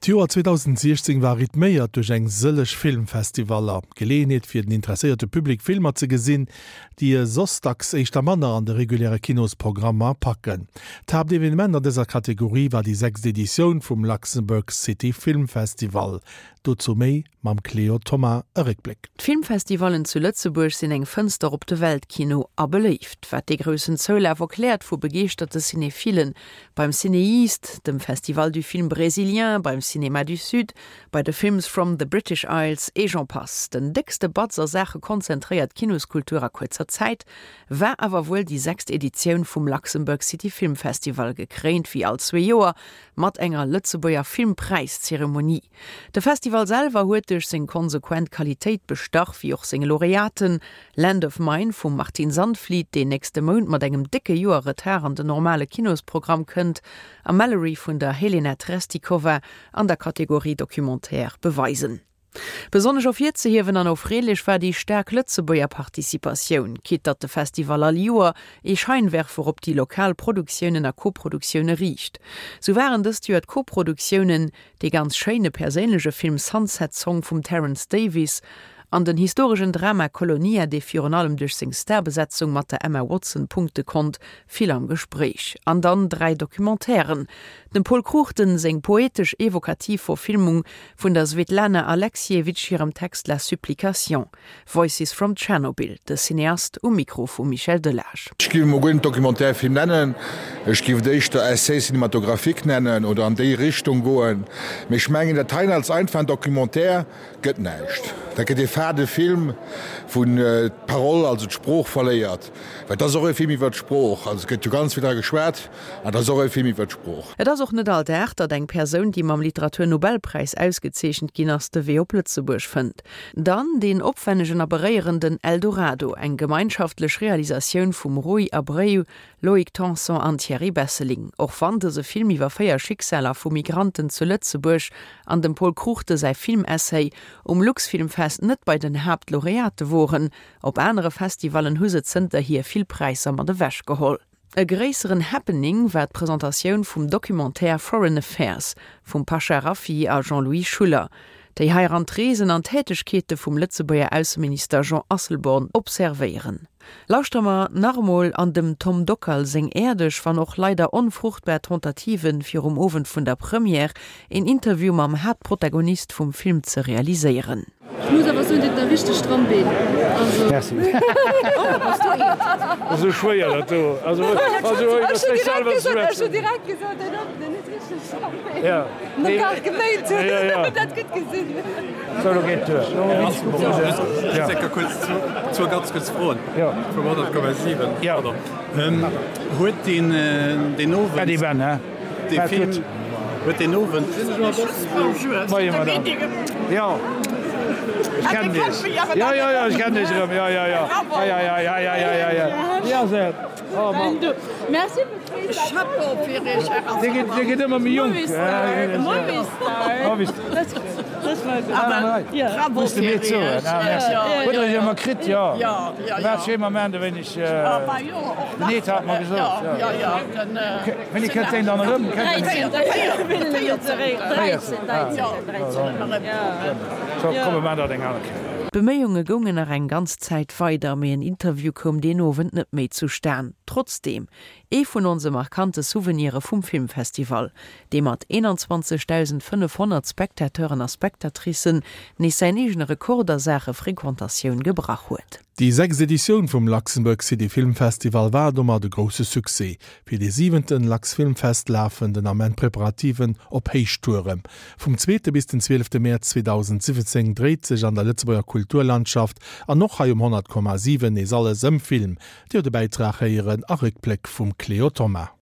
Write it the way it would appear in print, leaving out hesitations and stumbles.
D'Joer 2016 war rythméiert duerch eng sëlleg Filmfestivaller. Geleeënheet fir den interesséierte Public Filmer ze gesinn, déi e soss dacks éischter manner an de reguläre Kinosprogrammer packen. D'Haaptevenement an dëser Kategorie war déi sechst Editioun vum Luxembourg City Film Festival. Dozou méi mam Cléo Thoma. E Réckbléck. D'Filmfestivallen zu Lëtzebuerg sinn eng Fënster op de Weltkino a beléift, wat dee groussen Zoulaf erkläert vu begeeschterte Cinéphilen. Beim CinEast, dem Festival du film brésilien, beim Cinéma du Sud, bei de Films from the British Isles et j'en passe. Den déckste Batz a Saache konzentréiert Kinoskultur a kuerzer Zäit war awer wuel déi sechst Editioun vum Luxembourg City Film Festival, gekréint wéi all zwee Joer mat enger Lëtzebuerger Filmpräiszeremonie. De Festival selwer huet duerch seng konsequent Qualitéit bestach, wéi och seng Laureaten, Land of Mine vum Martin Zandvliet, deen nächste Mount mat engem décke Joer Retard an den normale Kinosprogramm kënnt, a Mallory vun der Helena Trestikova an der Kategorie Documentaire beweisen. Besonnesch ervirzehiewen an erfreelech war déi staark Lëtzebuerger Participatioun, quitte datt de Festival all Joer ee Scheinwerfer op déi lokal Produktiounen a Koproduktioune riicht. Sou waren dëst Joer d'Koproduktiounen dee ganz schéine perséinleche Film Sunset Song vum Terence Davies an den historeschen Drama Kolonia, dee virun allem duerch seng Starbesetzung mat der Emma Watson punkte konnt, vill am Gespréich. An dann 3 Documentairen, Dem Pol Cruchten seng poetesch-evokativ Verfilmung vun der Svetlana Alexievitch hirem Text La Supplication, Voices from Tschernobyl, de Cineast um Mikro vum Michel Delage. Ech géif emol guer net Documentaire-Film nennen, ech géif et éischter Essai cinématographique nennen oder an déi Richtung goen. Mee ech mengen, dat heien als einfachen Documentaire gëtt näischt. Dat gëtt ee fade Film, wou d'Parole, also d'Sprooch verléiert. Well et ass och e Film iwwer d'Sprooch. Also et gëtt jo ganz vill dra geschwat. An et ass och e Film iwwer d'Sprooch. Et ass och net all Dag, datt eng Persoun, déi mam Literatur-Nobelpräis ausgezeechent ginn ass, de Wee op Lëtzebuerg fënnt. Dann deen opwännegen a beréierenden Eldorado, eng gemeinschaftlech Realisatioun vum Rui Abreu, Loïc Tanson an Thierry Besseling. Och wann dëse Film iwwer 4 Schicksaler vu Migranten zu Lëtzebuerg an dem Pol Cruchten säi Filmessay um Luxfilmfest net bei den Haaptlaureate woren, op anere Festivallen hu se zënterhier vill Präisser mat ewech geholl. E gréisseren Happening war d'Presentatioun vum Documentaire Foreign Affairs vum Pasha Rafiy a Jean-Louis Schuller, déi heiran d'Reesen an d'Tätegkeete vum Lëtzebuerger Ausseminister Jean Asselborn observéieren. Lauschtere mer nach emol an dem Tom Dockal seng äerdeg, wann och leider onfruchtbar Tentative fir um Owend vun der Première een Interview mam Haaptprotagonist vum Film ze realiséieren. Ech muss awer soen, dir hutt der richteg stramm Been. Also. Merci. Esou schwéier dat do. Also, also iwwer sech selwer ze schwätzen. Ech hunn direkt gesot, deen huet den huet richteg stramm Been. Ja. Net gar geméint hunn. Ja, ja. Dat gutt gesinn. Sou, lo geet duer. Ja. Zwou ganz kuerz Froen. Ja. Vum 100,7. Ja. Pardon. Huet deen deen Owend. Äddi Ben, hä? Dee Film huet deen Owend. Moie Madame. Jo, ech kennen Iech. Jo, jo, jo, ech kennen Iech erëm. Jo, jo, jo. Hei, hei, hei, hei, hei, hei, hei. Wéi ass et? Oh Mann. Dir gitt, Dir gitt ëmmer méi jonk. Muss de mir zoen. Ah, merci. Hutt Der Iech ëmmer kritt? Jo. Waart schéi Moment e wéineg. Den Ed hat mer gesot. Wéini kënnt deen dann erëm? D'Beméiunge goungen nach eng ganz Zäit weider, mee en Interview koum deen Owend net méi zustan. Trotzdeem, ee vun onse markante Souvenire vum Filmfestival, dee mat 21.500 Spectateuren a Spectatricen nees säin eegene Rekord a Saache Frequentatioun gebrach huet. Déi sechst Editioun vum Luxembourg City Film Festival war domat e grousse Succès. Fir dee siwenten LuxFilmFest lafen den Ament d'Preparativen op Héichtouren. Vum zweete bis den zwielefte Mäerz 2017 dréit sech an der Lëtzebuerger Kulturlandschaft an och hei um 100,7 nees alles ëm Film. Dir hutt e Bäitrag héieren a Réckbléck vum Cléo Thoma.